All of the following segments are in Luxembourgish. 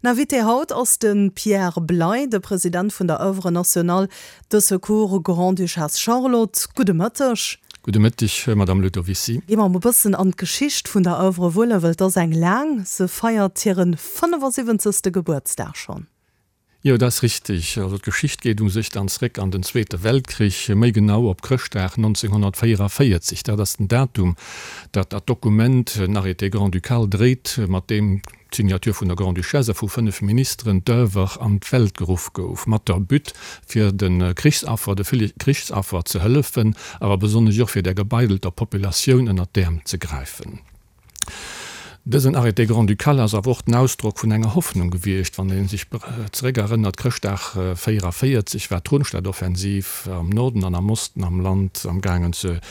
Invité haut ass de Pierre Bley, de President vun der Oeuvre Nationale de Secours Grande-Duchesse Charlotte. Gudde Mëtteg. Gudde Mëtteg, Madame Ludovicy. Gi mer e bëssen an d'Geschicht vun der Oeuvre wuelen, well et ass eng laang. Se feiert hire 75. Gebuertsdag schonn. Jo, dat ass richteg. Also d'Geschicht geet u sech dann zréck an den Zweete Weltkrich, méi genau op Chrëschtdag 1944. Dat ass den Datum, dat dat Dokument, en Arrêté grand-ducal, dréit, mat deem d'Signature vun der Grande-Duchesse a vu 5 Ministeren d'Oeuvre an d'Welt geruff gouf, mat der But fir de Krichsaffer, de ville Krichsaffer ze hëllefen, awer besonnesch och fir der gebeidelter Populatioun ënnert d'Äerm ze gräifen. Dësen Arrêté grand-ducal ass awer och den Ausdrock vun enger Hoffnung gewiescht. Wann ee sech zeréckerënnert, Chrëschtdag 44 war d'Rundstedtoffensiv am Norden an am Osten am Land am gaangen ze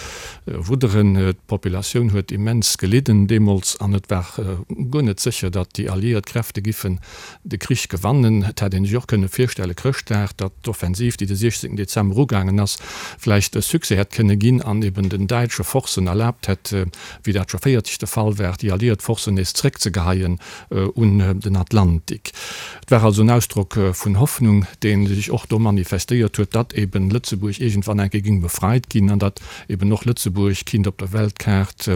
wudderen. D'Populatioun huet immens gelidden deemools an et war guer net sécher, datt déi alliéiert Kräfte giffen de Krich gewannen. Et hätt ee sech och kënne virstelle Chrëschtdag, datt d'Offensiv, déi de 16 Dezember ugaangen ass, vläicht e Succès hätt kënne ginn an eben den däitsche Forcen erlaabt hätt, wéi dat scho 40 de Fall war, déi alliiert Forcen nees zréckzegeheien un den Atlantik. Et war also en Ausdrock vun Hoffnung, dee sech och do manifestéiert huet, datt eben Lëtzebuerg iergendwann eng Kéier géing befreit ginn an datt eben och Lëtzebuerg kinnt op der Weltkaart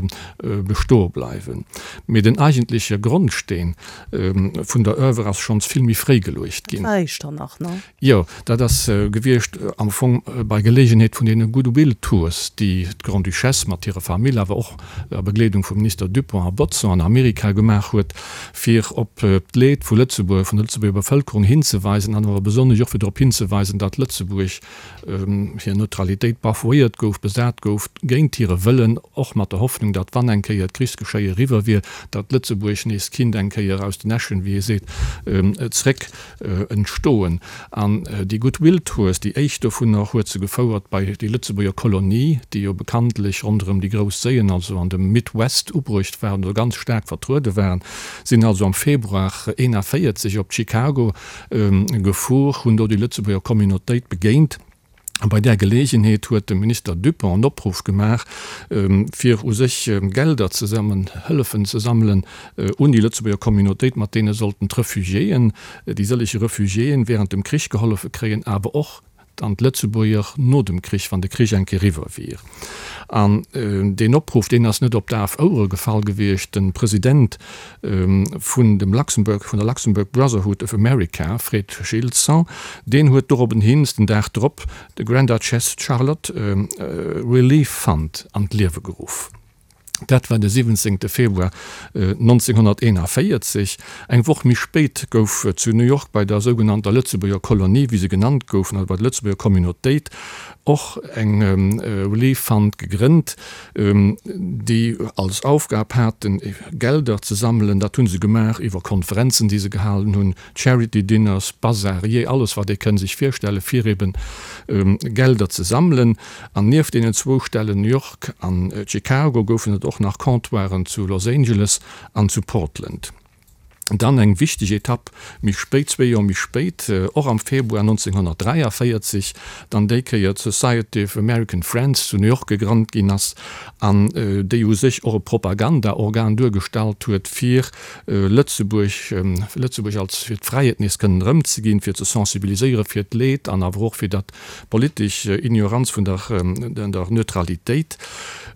bestoe bleiwen. Mee den eigentleche Grondsteen vun der Oeuvre ass schonns vill méi fréi geluecht ginn. Dat war Echternach, ne? Jo, dat ass gewiescht am Fong bei Geleegenheet vun deene Goodwill Tours, déi d'Grande-Duchesse mat hirer Famill, awer och a Begleedung vum Minister Dupong a Bodson an Amerika gemaach huet, fir op d'Leed vu Lëtzebuerg, vun der Lëtzebuerger Bevëlkerung hinzeweisen an awer besonnesch och fir drop hinzeweisen, datt Lëtzebuerg hir Neutralitéit bafouéiert gouf, besat gouf, géint hire Wëllen, och mat der Hoffnung, datt wann eng Kéier d'Krichsgeschéie eriwwer wier, datt Lëtzebuerg nees kinnt eng Kéier aus den Äschen, wéi ee seet, zréck entstoen. An déi Goodwill Tours, déi éischt dovunner huet se gefouert bei déi Lëtzebuerger Kolonie, déi jo bekanntlech ronderëm déi grouss Séien, also an dem Midwest ubruecht waren oder ganz staark vertruede waren, sinn also am Februar 41 op Chicago gefuer, hunn do déi Lëtzebuerger Communautéit begéint. A bei där Geleegenheet huet de Minister Dupong en Opruff gemaach, fir u sech Gelder ze sammeln, Hëllefen ze sammelen un déi Lëtzebuerger Communautéit, mat deene sollten d'Refugiéen, déi sëllege Refugiéen während dem Krich gehollefe kréien, awer och dann d'Lëtzebuerger no dem Krich, wann de Krich eng Kéier eriwwer wier. An deen Opruff, deen ass net op daf Ouere gefall gewiescht. De President vun dem Luxembourg, vun der Luxembourg Brotherhood of America, Fred Gilson, deen huet dorobben hin den Dag drop de Grand Duchess Charlotte Relief Fund an d'Liewe geruff. Dat war de 17 Februar 1941. Eng Woch méi spéit gouf zu New York bei der sougenannter Lëtzebuerger Kolonie, wéi se genannt goufen, also bei der Lëtzebuerger Communautéit, och eng Relief Fund gegrënnt, déi als Aufgab haten, Gelder ze sammelen. Dat hu se gemaach iwwer Konferenzen, déi se gehalen hunn, Charity Dinners, Bazar, jee alles, wat ee kënn sech virstellen, fir eben Gelder ze sammelen. An nieft deenen zwou Stellen, New York an Chicago, goufen et och nach Comptoiren zu Los Angeles an zu Portland. Dann eng wichteg Etapp méi spéit, zwee Joer méi spéit, och am Februar 1943, dann déi Kéier d'Society of American Friends zu New York gegrannt ginn ass an déi u sech och e Propagandaorgan duergestallt huet, fir Lëtzebuerg, Lëtzebuerg als fir d'Fräiheet nees kënnen erëmzeginn, fir ze sensibiliséiere fir d'Leed an awer och fir dat Politesch Ignoranz vun der Neutralitéit.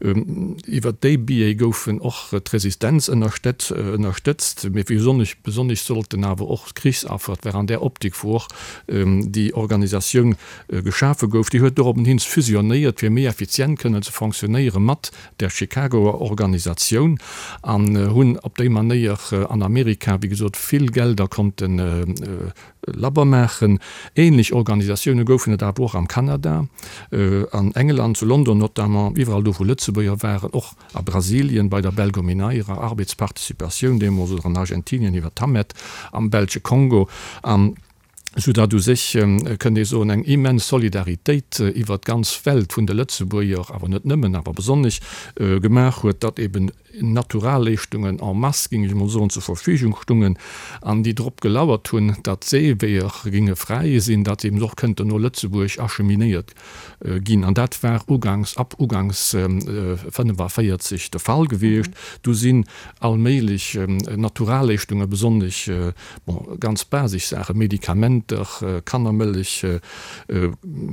Iwwer déi Biais goufen och d'Resistenz ënnerstëtzt, mee besonnesch besonnesch sollten awer och d'Krichsaffer, et war an där Optik wou och déi Organisatioun geschafe gouf, déi huet dorobbenhin fusionnéiert fir méi effizient kënnen ze fonctionnéiere mat der Chicagoer Organisatioun an hunn op déi Manéier an Amerika wéi gesot vill Gelder konnten Labber maachen. Ähnlech Organisatioune goufen et awer och am Kanada, an England, zu London notamment, iwwerall do wou Lëtzebuerger waren, och a Brasilien bei der Belgomineira, Arbeitsparticipatioun deemools, oder an Argentinien iwwer d'Hamet, am belsche Kongo. An. Soudatt u sech, kënnt ee soen, eng immens Solidaritéit iwwert d'ganz Welt vun de Lëtzebuerger, awer net nëmmen, awer besonnesch, gemaach huet, datt eben Naturalleeschtungen en masse, géing ech emol soen, zur Verfügung stungen an déi drop gelauert hunn, datt d'Seeweeër géinge fräi sinn, datt se eben och kënnten no Lëtzebuerg acheminéiert ginn. An dat war uganks, ab uganks 45 de Fall gewiescht. Du sinn allméiglech Naturalleeschtungen, besonnesch, bon, ganz basisch Saachen, Medikamenter, Kannermëllech,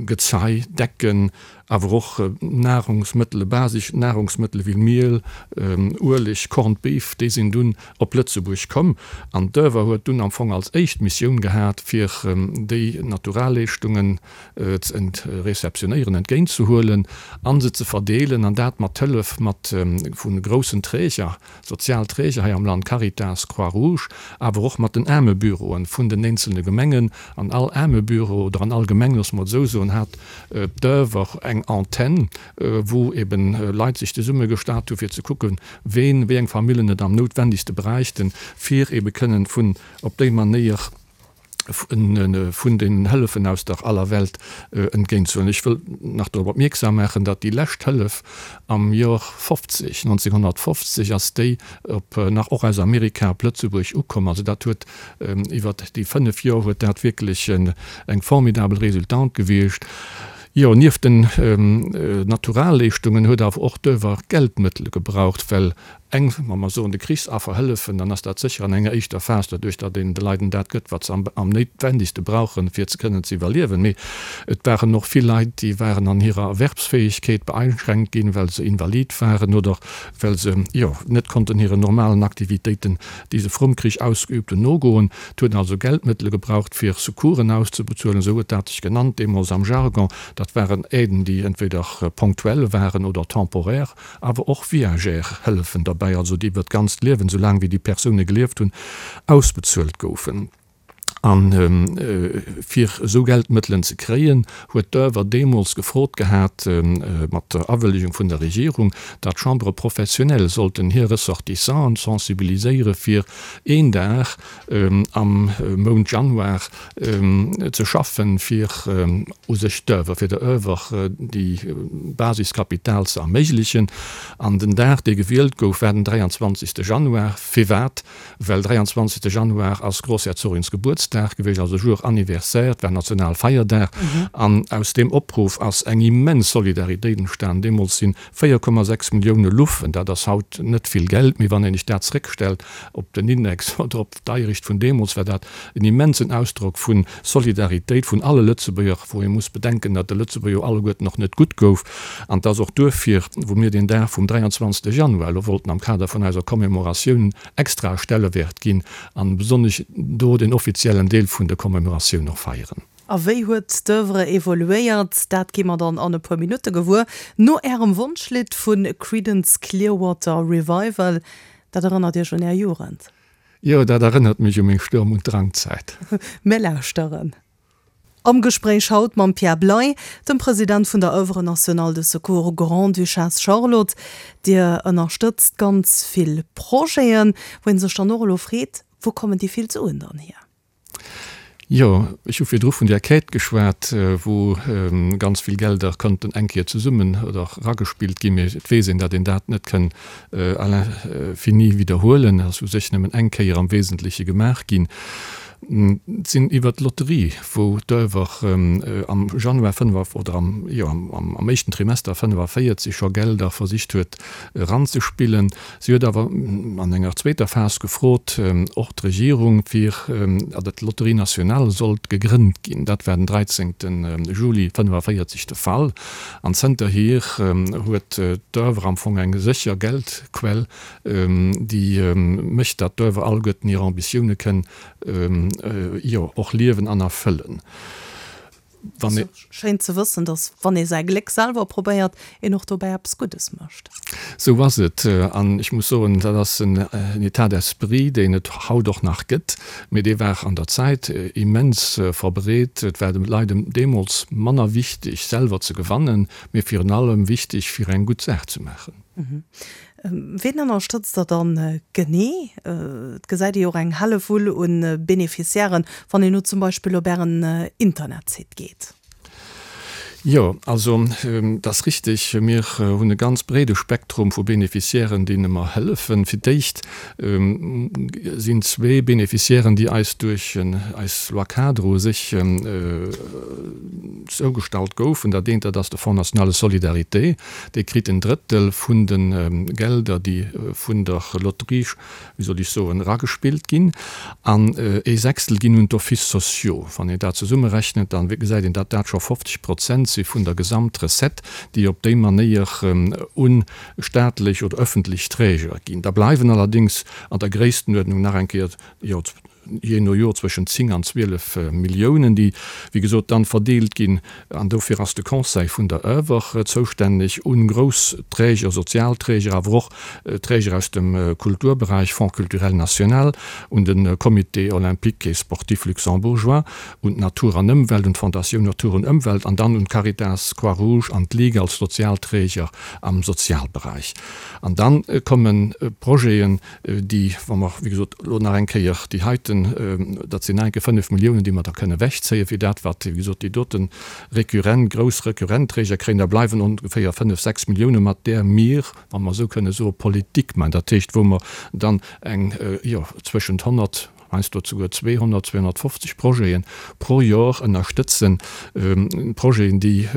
Gezei, Decken, awer och Nahrungsmëttele, basisch Nahrungsmëttele wéi Miel, Ueleg, Corned Beef, déi sinn dunn op Lëtzebuerg komm. An d'Oeuvre huet dunn am Fong als éischt Missioun gehat, fir déi Naturalleeschtungen ze réceptionnéieren, entgéint ze huelen a se ze verdeelen, an dat mat Hëllef mat vu groussen Träger, sozial Träger hei am Land, Caritas, Croix-Rouge, awer och mat den Aarmebüroen vun den eenzelne Gemengen. An all Aarmebüro oder an all Gemeng, loosse mer et esou soen, hat d'Oeuvre eng Antenn, wou eben Leit sech zesummegestat hu fir ze kucken, ween, wéi eng Famillen et am noutwendigste bräichten, fir ebe kënnen vun op déi Manéier vun den Hëllefen aus der aller Welt entgéintzehuelen. Ech wëll nach dorop opmierksam maachen, datt déi lescht Hëllef am Jor 50, 1950 ass déi op nach och aus Amerika op Lëtzebuerg ukomm. Also dat huet iwwert déi 5 Jor huet dat wierklech eng formidabel Resultante gewiescht. Jo, nieft den Naturalleeschtungen huet awer och d'Oeuvre Geldmëttele gebraucht, well eng, wa mer soen, de Krichsaffer hëllefen, dann ass dat sécher an enger éischter Phas doduerch, datt een de Leiden dat gëtt, wat se am néitwendigste brauchen, fir ze kënnen ze iwwerliewen. Mee et waren och vill Leit, déi waren an hirer Erwerbsfäegkeet beeinschränkt ginn, well se invalid waren oder well se, jo, net konnten hiren normalen Aktivitéiten, déi se vrum Krich ausgeübt hunn, nogoen. Et huet also Geldmëttele gebraucht, fir Secoursen auszebezuelen, esou huet dat sech genannt deemools am Jargon. Dat waren Aiden, déi entweder ponctuell waren oder temporaire. Awer och viagère Hëllefen derbäi, also déi iwwer d'ganzt Liewen, esou laang wéi déi Persoune gelieft hunn, ausbezuelt goufen. A fir esou Geldmëttelen ze kréien, huet d'Oeuvre deemools gefrot gehat, mat der Awëllegung vun der Regierung, datt d'Chambres professionnelles sollten hir Ressortissanten sensibiliséiere fir een Dag am Mount Januar ze schaffen, fir u sech d'Oeuvre, fir der Oeuvre déi Basiskapital ze erméiglechen. An den Dag, dee gewielt gouf, war den 23. Januar. Firwat? Well 23. Januar ass Grossherzogins Gebuertsdag gewiescht, also Jour anniversaire, et war Nationalfeierdag. An aus deem Opruff ass eng immens Solidaritéit entstan. Deemools sinn 4,6 Millioune Luffen, dat ass haut net vill Geld, mee wann een sech dat zréckstellt op den Index oder op d'Deierecht vun deemools, war dat en immensen Ausdrock vu Solidaritéit vun alle Lëtzebuerger, wou ee muss bedenken, datt de Lëtzebuerger jo alleguerten och net gutt gouf. An et ass och duerfir, wou mir deen Dag vum 23. Januar elo wollten am Kader vun eiser Commémoratioun extrae Stellewäert ginn an besonnesch do den offiziellen Deel vun der Commémoratioun och feieren. A wéi huet d'Oeuvre evoluéiert? Dat gi mer dann an e puer Minutte gewuer, no Ärem Wonschlidd vu Creedence Clearwater Revival. Dat erënnert Iech un Är Jugend? Jo, dat erënnert mech u meng Sturm und Drangzäit. Mir lauschteren. Am Gespréich haut mam Pierre Bley, dem President vun der Oeuvre Nationale de Secours Grande-Duchesse Charlotte. Dir ënnerstëtzt ganz vill Projeten, wou ee sech dann och elo freet, Wou kommen déi vill Suen dann hier? Jo, ech hu virdru vun där Quête geschwat, wou ganz vill Gelder konnten eng Kéier zesummen oder eragespillt ginn. Mee et weess een, datt een dat net kënn à l'infini widderhuelen. Et ass u sech nëmmen eng Kéier am Wesentleche gemaach ginn. Et sinn iwwert d'Lotterie, wou d'Oeuvre am Januar 5 oder am, jo, am éischten Trimester 45 scho Gelder versicht huet eranzespillen. Si huet awer an enger zweeter Phas gefrot, och d'Regierung, fir datt d'Lotterie nationale sollt gegrënnt ginn. Dat war den 13 Juli 1945 de Fall. An zënterhier huet d'Oeuvre am Fong eng sécher Geldquell, déi mécht, datt d'Oeuvre alleguerten hir Ambitioune kënn, jo, och liewen an erfëllen. Wann ee. Schéin ze wëssen, dass wann ee säi Gléck selwer probéiert, een och dobäi eppes Guddes mécht. Sou ass et. An ech muss soen, dat ass en État d'esprit, deen et haut och nach gëtt, mee dee war an der Zäit immens verbreet. Et war de Leit deemools manner wichteg, selwer ze gewannen, mee virun allem wichteg, fir eng gutt Saach ze maachen. Ween ënnerstëtzt Der dann genee? Et gesäit ee jo och eng Hellewull un Beneficiairen, wann een elo zum Beispill op Ären Internetsite geet. Jo, also et ass richtig, mir hunn e ganz breede Spektrum vu Beneficiairen, deene mer hëllefen. Fir d'éischt sinn zwee Beneficiairen, déi eis duerch eis Loi-cadre u sech zougestallt goufen. Dat eent, dat ass de Fonds national de solidarité. Dee kritt en Drëttel vun de Gelder, déi vun der Lotterie, wéi soll ech soen, eragespillt ginn, an ee Sechstel ginn un d'Offices sociaux. Wann een dat zesummerechnet, da gesäit een, datt dat scho 50 Prozent si vun der Gesamtrecette, déi op déi Manéier u staatlech oder öffentlech Träger ginn. Da bleiwen allerdéngs an der Gréisstenuerdnung nach eng Kéier, jo, jee no Jor zwëschen 10 an 12 Milliounen, déi, wéi gesot, dann verdeelt ginn, an dofir ass de Conseil vun der Oeuvre zoustänneg, un grouss Träger, sozial Träger, awer och Träger aus dem Kulturberäich, Fonds culturel national, un de Comité olympique et sportif luxembourgeois, un d'Natur an Ëmwelt, un d'Fondatioun Natur und Ëmwelt an dann un d'Caritas, Croix-Rouge an d'Ligue als Sozialträger am Sozialberäich. An dann komme Projeten, déi, wa mer, wéi gesot, elo nach eng Kéier déi heiten, dat sinn nach eng Kéier 5 Milliounen, déi mer da kënne ewechzéien, fir dat, wat, wéi gesot, déi dote récurrent, grouss récurrent Träger kréien, da bleiwen ongeféier 5, 6 Milliounen, mat där mir, wa mer esou kënne soen, Politik maachen, dat heescht, wou mer dann eng, jo, zwëschent 100, heiansdo souguer 200, 250 Projete pro Jor ënnerstëtzen, Projeten, déi,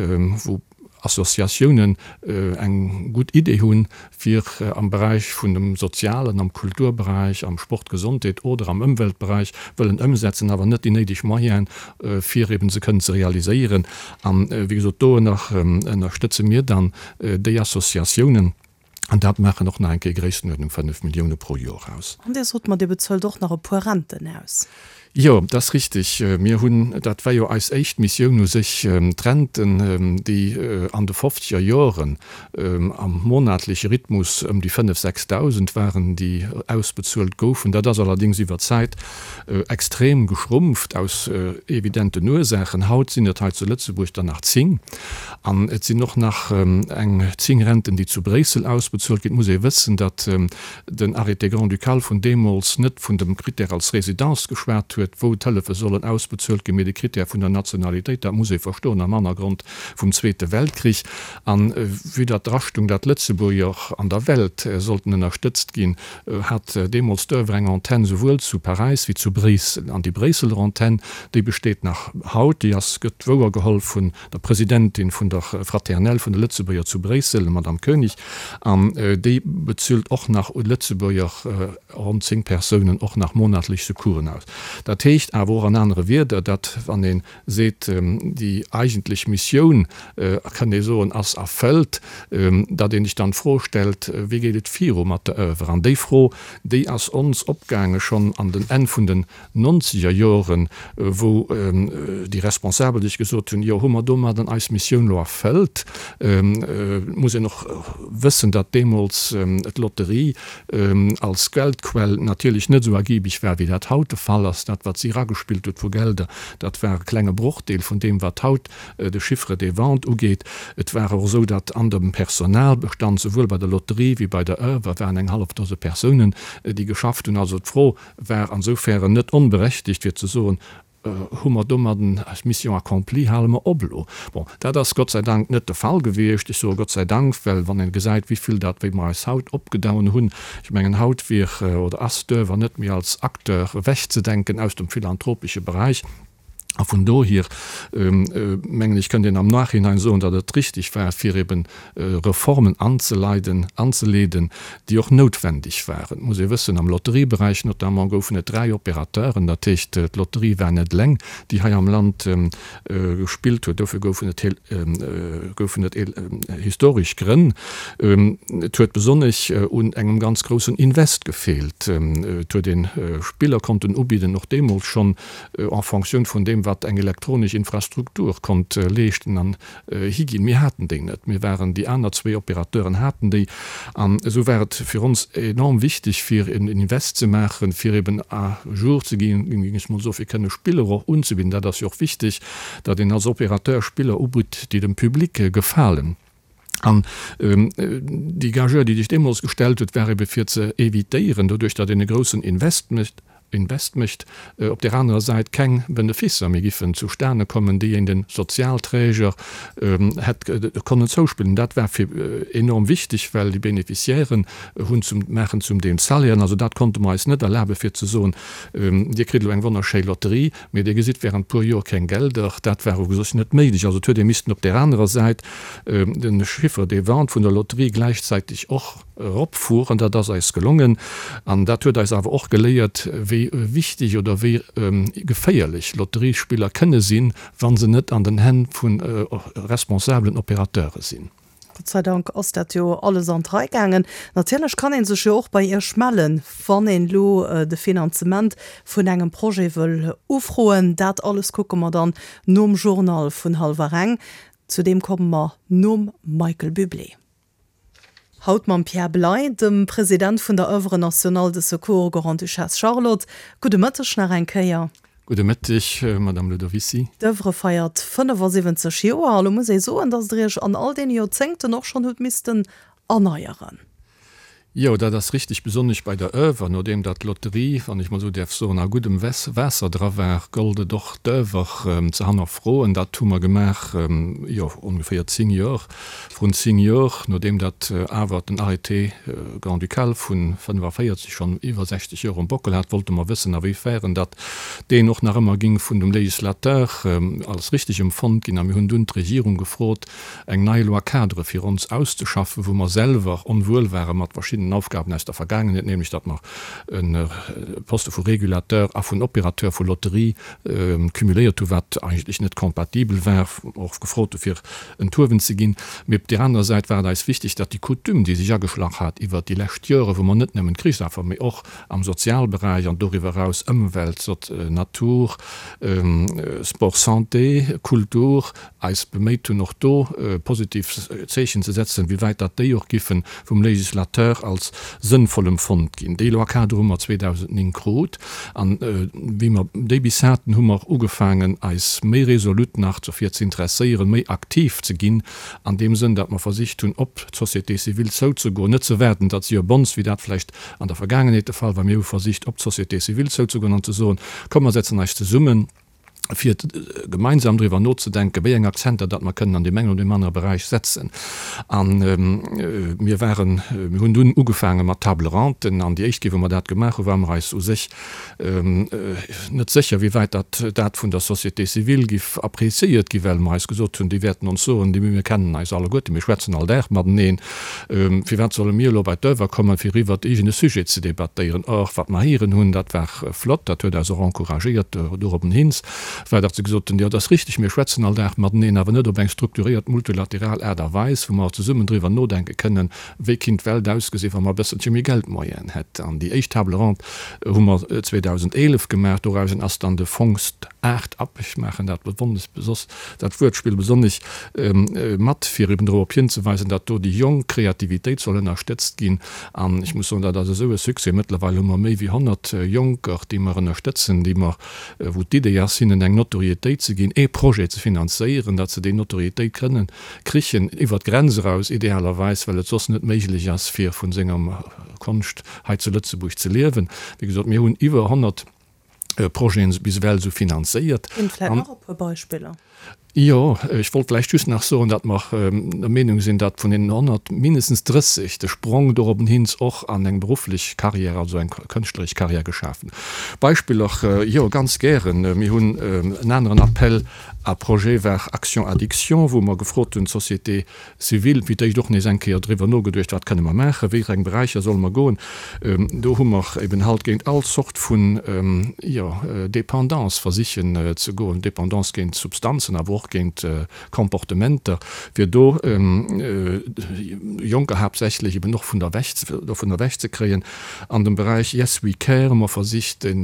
wou Associatiounen eng gutt Idee hunn, fir am Beräich vun dem Sozialen, am Kulturberäich, am Sport, Gesondheet oder am Ëmweltberäich wëllen ëmsetzen, awer net déi néideg Moyene fir eben se kënnen ze realiséieren. An, wéi gesot, do ënnerstëtze mir dann déi Associatiounen. An dat maachen och nach eng Kéier Gréisstenuerdnung 5 Millioune pro Joer aus. An Dir sot mer, Dir bezuelt och nach e puer Renten aus. Jo, dat ass richtig. Mir hunn, dat war jo eis éischt Missioun u sech, d'Renten, déi an de fofzeger Joren am monatleche Rhythmus ëm déi 5, 6.000 waren, déi ausbezuelt goufen. Dat ass allerdéngs iwwer d'Zäit extrem geschrumpft, aus evidenten Ursaachen. Haut sinn et hei zu Lëtzebuerg der nach 10. An et sinn och nach eng 10 Renten, déi zu Bréissel ausbezuelt ginn. Et muss ee wëssen, datt den Arrêté grand-ducal vun deemools net vun dem Critère als Résidence geschwat huet, wou d'Hëllefe sollen ausbezuelt ginn, mee de Critère vun der Nationalitéit. Dat muss ee verstoen am Hannergrond vum Zweete Weltkrich. A vue datt d'Rachtung, datt d'Lëtzebuerger an der Welt sollten ënnerstëtzt ginn, hat deemools d'Oeuvre eng Antenn souwuel zu Paräis wéi zu Bréissel. An déi Bréisseler Antenn, déi besteet nach haut, déi ass, gëtt wouergeholl vun der Presidentin vun der Fraternelle vun de Lëtzebuerger zu Bréissel, der Madame Koenig, an déi bezuelt och nach u Lëtzebuerger, ronn 10 Persounen, och nach monatlech Secoursen aus. Dat heescht awer och an anere Wierder, datt wann ee seet, déi eigentlech Missioun, kënnt ee soen, ass erfëllt, datt ee sech dann d'Fro stellt, wéi geet et viru mat der Oeuvre? An déi Fro, déi ass ons opgaange schonn an den Enn vun den nonzeger Joren, wou déi Responsabel sech gesot hunn, jo, hu mer domadden eis Missioun elo erfëllt? Et muss een och wëssen, datt deemools d'Lotterie als Geldquell natierlech net esou ergibeg war, wéi dat haut de Fall ass. Dat, wat si eragespillt huet vu Gelder, dat war e klenge Brochdeel vun deem, wat haut de Chiffre des ventes ugeet. Et war och esou, datt an dem Personalbestand, souwuel bei der Lotterie wéi bei der Oeuvre, waren eng hallef Dose Persounen, déi geschafft hunn. Also d'Fro war ansoufären net onberechtegt, fir ze soen, Hu mer domadden eis Mission accomplie, hale mer op elo? Bon, dat ass Gott sei Dank net de Fall gewiescht. Ech soe Gott sei Dank, well wann ee gesäit, wéi vill dat, wéi mer eis haut opgedoen hunn, ech mengen, haut wier oder ass d'Oeuvre net méi als Acteur ewechzedenken aus dem philanthropesche Beräich. A vun dohier, mengen ech, kënnt een am Nachhinein soen, datt et richtig war, fir eben Reformen anzeleiden, anzeleeden, déi och noutwendeg waren. Et muss ee wëssen, am Lotterieberäich notamment goufen et dräi Opérateuren, dat heescht, d'Lotterie war net eleng, déi hei am Land gespillt huet. Dofir goufen et goufen et historesch Grënn. Et huet besonnesch un engem ganz groussen Invest gefeelt. Et huet ee Spiller konnten ubidden, och deemools schonn, en Fonctioun vun deem, wat eng elektronesch Infrastruktur konnt leeschten an higinn. Mir haten déi net. Mir waren, déi aner zwéi Opérateuren haten déi. An esou war et fir ons enorm wichteg, fir en Invest ze maachen, fir eben à jour ze ginn, géing ech mol soen, fir kënne Spiller och unzebidden. Dat ass jo och wichteg, datt een als Opérateur Spiller ubitt, déi dem Public gefalen. An déi Gageure, déi sech deemools gestellt huet, war ebe fir ze évitéieren, doduerch datt een e groussen Invest mécht, Invest mécht, op där anerer Säit keng Beneficer méi giffen zustane kommen, déi een de Sozialträger hätt konnen zouspillen. Dat war fir enorm wichteg, well déi Beneficiairen hunn zum, maachen zum Deel Salairen. Also dat konnte mer eis net erlabe fir ze soen, Dir kritt elo eng wonnerschéi Lotterie, Mee Dir gesitt während puer Joer keng Gelder. Dat war u sech net méiglech. Also et huet ee missten op där anerer Säit de Chiffre de vente vun der Lotterie gläichzäiteg och eropfueren. Dat ass eis gelongen. An dat huet eis awer och geléiert, wéi wichteg oder wéi geféierlech Lotteriespiller kënne sinn, wa se net an den Hänn vu responsabelen Opérateure sinn. Gott sei Dank ass dat jo alles an d'Rei gaangen. Natierlech kann ee sech jo och bei Iech mellen, wann een elo de Finanzement vun engem Projet wëll ufroen. Dat alles kucke mer dann nom Journal vun hallwer eng. Zu deem komme mer nom Michael Bublé. Haut mam Pierre Bley, dem President vun der Oeuvre Nationale de Secours Grande-Duchesse Charlotte. Gudde Mëtteg nach eng Kéier. Gudde Mëtteg, Madame Ludovicy. D'Oeuvre feiert 75 Joer a lo muss ee soen, datt Der Iech an all deene Joerzéngten och schonn hutt missten erneieren. Jo, dat ass richtig, besonnesch bei der Oeuvre. Nodeem datt d'Lotterie, wann ech mol esou däerf soen, a guddem Waasser dra war, gollt et och d'Oeuvre ze hannerfroen. Dat hu mer gemaach, jo, ongeféier 10 Joer, vrun 10 Joer, nodeem datt awer den Arrêté grand-ducal vu 45 schonn iwwer 60 Joer um Bockel hat, wollte mer wëssen, a wéi fern datt deen och nach ëmmer ging vun dem Législateur als richtig emfonnt ginn. A mir hunn dunn d'Regierung gefrot, eng nei Loi-cadre fir ons auszeschaffen, wou mer selwer onwuel ware mat verschiddenen Aufgaben aus der Vergaangenheet, nämlech datt mer e Poste vu Régulateur a vun Opérateur vu Lotterie cumuléiert hu wat eigentlech net compatibel war, och gefrot hu fir enthuewen ze ginn. Mee op där anerer Säit war et eis wichteg, datt déi Coutume, déi sech ageschlach hat iwwert déi lescht Jore, wou mer net nëmmen d'Krichsaffer, mee och am Sozialberäich an doriwwer eraus Ëmwelt, Natur, Sport, Santé, Kultur, eis beméit hunn och do positiv Zeechen ze setzen, wéi wäit datt déi och giffe vum Législateur als sënnvoll emfonnt ginn. Déi Loi-cadre hu mer 2009 krut an wéi mer déi bis haten, hu mer ugefaangen eis méi resolut nach dofir ze interesséieren, méi aktiv ze ginn an deem Sënn, datt mer versicht hunn op d'Société civile zouzegoen, net ze waarden, datt si op ons, wéi dat vläicht an der Vergaangenheet de Fall war, mir hu versicht op d'Société civile zouzegoen an ze soen, komm mer setzen eis zesummen, fir gemeinsam driwwer nozedenken, wéi eng Akzenter datt mer kënnen an deem engen oder deem anere Beräich setzen. A mir waren, mir hunn dunn ugefaange mat Table-rondes. An déi éischt Kéier, wou mer dat gemaach hunn, ware mer eis u sech net sécher, wéi wäit datt dat vun der Société civile giff appréciéiert gi, well mer eis gesot hunn, déi wäerten ons soen, déi mir kennen eis alleguerten, mir schwätzen all Dag mateneen, firwat solle mir elo bei d'Oeuvre kommen, fir iwwert iergend e Sujet ze debattéieren. Or, wat mer héieren hunn, dat war Flott, dat huet eis och encouragéiert dorobben hins, war datt se gesot hunn, jo, et ass richteg, mir schwätzen all Dag mateneen, awer net op eng strukturiert multilateral Aart a Weis, wou mer zesummen driwwer nodenke kënnen, wéi kinnt d'Welt ausgesinn, wa mer e bësselche méi Geldmoyenen hätten. An déi éischt Table ronde hu mer 2011 gemaach. Dorausen ass dann de Fonds Art Up, ech maachen dat bewonnes, dat Wuertspill besonnesch mat, fir eben dorop hinzeweisen, datt do déi jonk Kreativitéit soll ënnerstëtzt ginn. An ech muss soen, dat ass esou e Succès. Mëttlerweil hu mer méi wéi 100 Jonker, déi mer ënnerstëtzen, déi mer, wou d'Idee ass, hinnen eng Notoriétéit ze ginn, ee Projet ze finanzéieren, datt se déi Notoriétéit kënnen krichen, iwwert d'Grenz eraus idealerweis, well et soss net méiglech ass, fir vun senger Konscht hei zu Lëtzebuerg ze liewen. Wéi gesot, mir hunn iwwer 100 Projeten bis ewell esou finanzéiert. Ginn vläit nach e puer Beispiller? Jo, ech wollt vläicht just nach soen, datt mer der Meenung sinn, datt vun deenen 100 mindestens 30 de Sprong dorobben hins och an eng berufflech Carrière, also eng kënschtleresch Carrière geschaf hunn. Beispiller, jo, ganz gären. Mir hunn en aneren Appel à projets war Action Addiction, wou mer gefrot hunn, d'Société civile, fir d'éischt och nees eng Kéier driwwer nogeduecht, wat kënne mer maachen, wéi eng Beräicher solle mer goen. Do hu mer eben halt géint all Zort vun, jo, Dépendance versichen ze goen, Dépendance géint Substanzen, awer och géint Comportementer, fir do Jonker haaptsächlech eben och vun der ewech, dovun ewech ze kréien. An dem Beräich Yes We Care hu mer versicht, de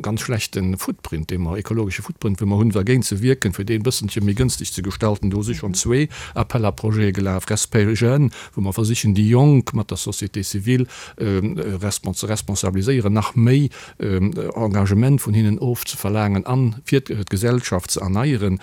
ganz schlechte Footprint, dee mer, ekologesche Footprint, wou mer hunn, dergéint ze wierken, fir dee e bësselche méi gënschteg ze gestalten. Do si schonn zwee Appels à projets gelaf, Respect Jeunes, wou mer versichen, déi Jonk mat der Société civile ze responsabiliséieren, nach méi Engagement vun hinnen ofzeverlaangen a fir d'Gesellschaft ze erneieren.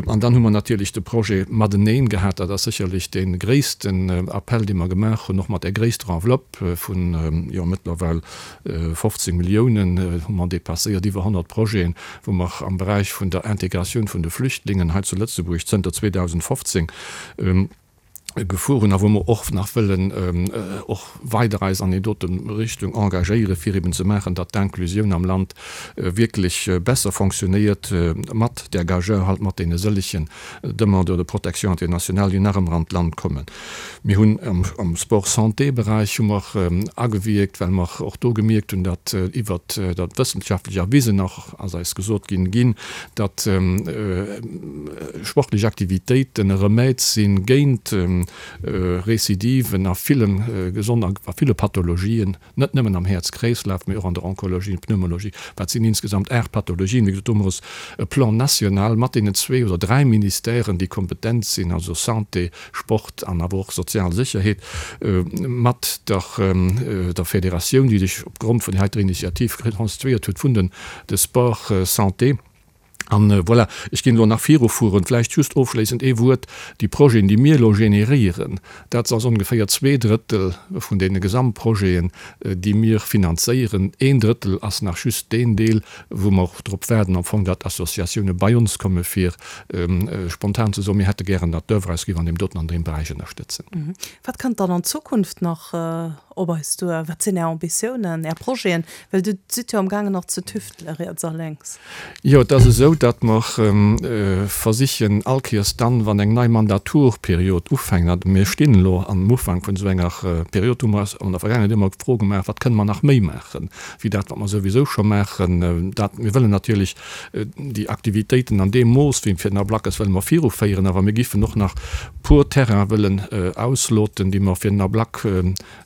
An dann hu mer natierlech de Projet Mateneen gehat. Dat ass sécherlech dee gréissten Appell, dee mer gemaach hunn, och mat där gréisster Enveloppe vun, jo, mëttlerweil 15 Milliounen hu mer dépasséiert, iwwer 100 Projeten, wou mer am Beräich vun der Integratioun vun de Flüchtlingen hei zu Lëtzebuerg zënter 2015 gefuer hunn a wou mer och nach wëllen och weider eis an déi dote Richtung engagéieren, fir eben ze maachen, datt d'Inclusioun am Land wierklech besser fonctionnéiert mat där Gageure halt, mat deene sëllegen Demandeurs de protection internationale, déi nach ëmmer an d'Land kommen. Mir hunn am Sport-Santé-Beräich hu mer agewierkt, well mer och do gemierkt hunn, datt iwwert dat wëssenschaftlech erwisen och ass eis gesot ginn, ginn, datt sportlech Aktivitéiten e Remède si géint Recidiven a ville gesond a ville Pathologien. Net nëmmen am Häerz-Kreeslaf, mee och an der Onkologie, Pneumologie. Dat sinn insgesamt 8 Pathologien. Wéi gesot, do hu mer e Plan national mat deenen zwee oder dräi Ministèren, déi kompetent sinn, also Santé, Sport an awer och sozial Sécherheet, mat der der Federatioun, déi sech opgrond vun där heiter Initiativ konstituéiert huet, vun den de Sport Santé. An voilà, ech ginn elo nach virufueren. Vläicht just ofschléissend ee Wuert, Déi Projeten, déi mir elo generéieren, dat ass ongeféier 2/3 vun deene Gesamtprojeten, déi mir finanzéieren. Een Drëttel ass nach just deen Deel, wou mer drop waarden am Fong, datt Associatioune bei ons komme fir spontan ze soen, mir hätte gären, datt d'Oeuvre eis géif an deem doten an deem Beräich ënnerstëtzen. Wat kënnt dann an Zukunft nach op eis duer? Wat sinn Är Ambitiounen, Är Projeten? Well Dir sidd jo am gaangen nach ze tüftele riets a lénks. Jo, et ass esou, datt mer versichen, all Kéiers dann, wann eng nei Mandaturperiod ufänkt, a mir stinn elo am Ufank vun esou enger Period, hu mer eis an der Vergaangenheet ëmmer d'Fro gemaach, Wat kënne mer nach méi maachen, wéi dat, wat mer souwisou scho maachen? Dat, mir wëllen natierlech déi Aktivitéiten an deem Mooss, wéi fir den Ablack ass, wëlle mer viruféieren, awer mir giffen och nach puer Terraine wëllen ausloten, déi mer fir den Ablack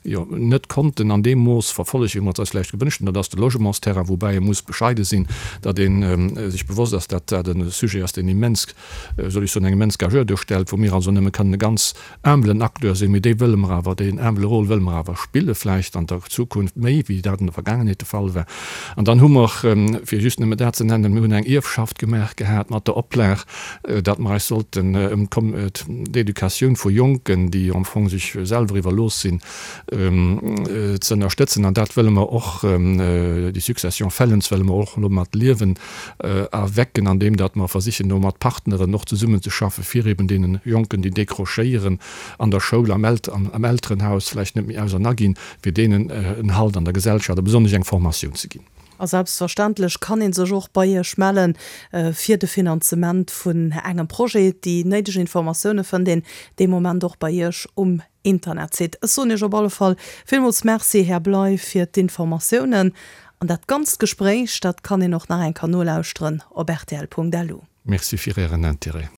jo net konnten an deem Mooss verfollegen, wéi mer et eis vläicht gewënscht hunn. Dat ass de Logementsterrain, woubäi ee muss bescheide sinn, datt ee sech bewosst ass, datt dat e Sujet ass, deen immens, soll ech soen, eng immens Gageure duerstellt, wou mir also nëmme kënnen e ganz humblen Acteur sinn, mee dee wëlle mer awer, deen humble Rôle wëlle mer awer spille vläicht an der Zukunft méi, wéi dat an der Vergaangenheet de Fall war. An dann hu mer, fir just nëmme dat ze nennen, mir hunn eng Ierfschaft gemaach gehat mat der Oplag, datt mer eis sollten ëm d'Educatioun vu Jonken, déi am Fong sech selwer iwwerlooss sinn, ze ënnerstëtzen. An dat wëlle mer och, déi Succession Fellens wëlle mer och elo mat Liewen erwecken, andeem datt mer versichen, do mat Partneren och zesummenzeschaffen, fir eben deene Jonken, déi décrochéieren an der Schoul, am Elterenhaus vläicht net méi ausernaginn, fir deenen en Halt an der Gesellschaft a besonnesch eng Formatioun ze ginn. A selbstverständlech kann ee sech och bei Iech melle fir de Finanzement vun engem Projet. Déi néideg Informatioune fënnt een dee Moment och bei Iech um Internetsite. Ech soen Iech op alle Fall villmools Merci, Här Bley, fir d'Informatiounen. An dat ganzt Gespréich, dat kann een och nach eng Kéier nolauschteren op rtl.lu. Merci fir Ären Interêt.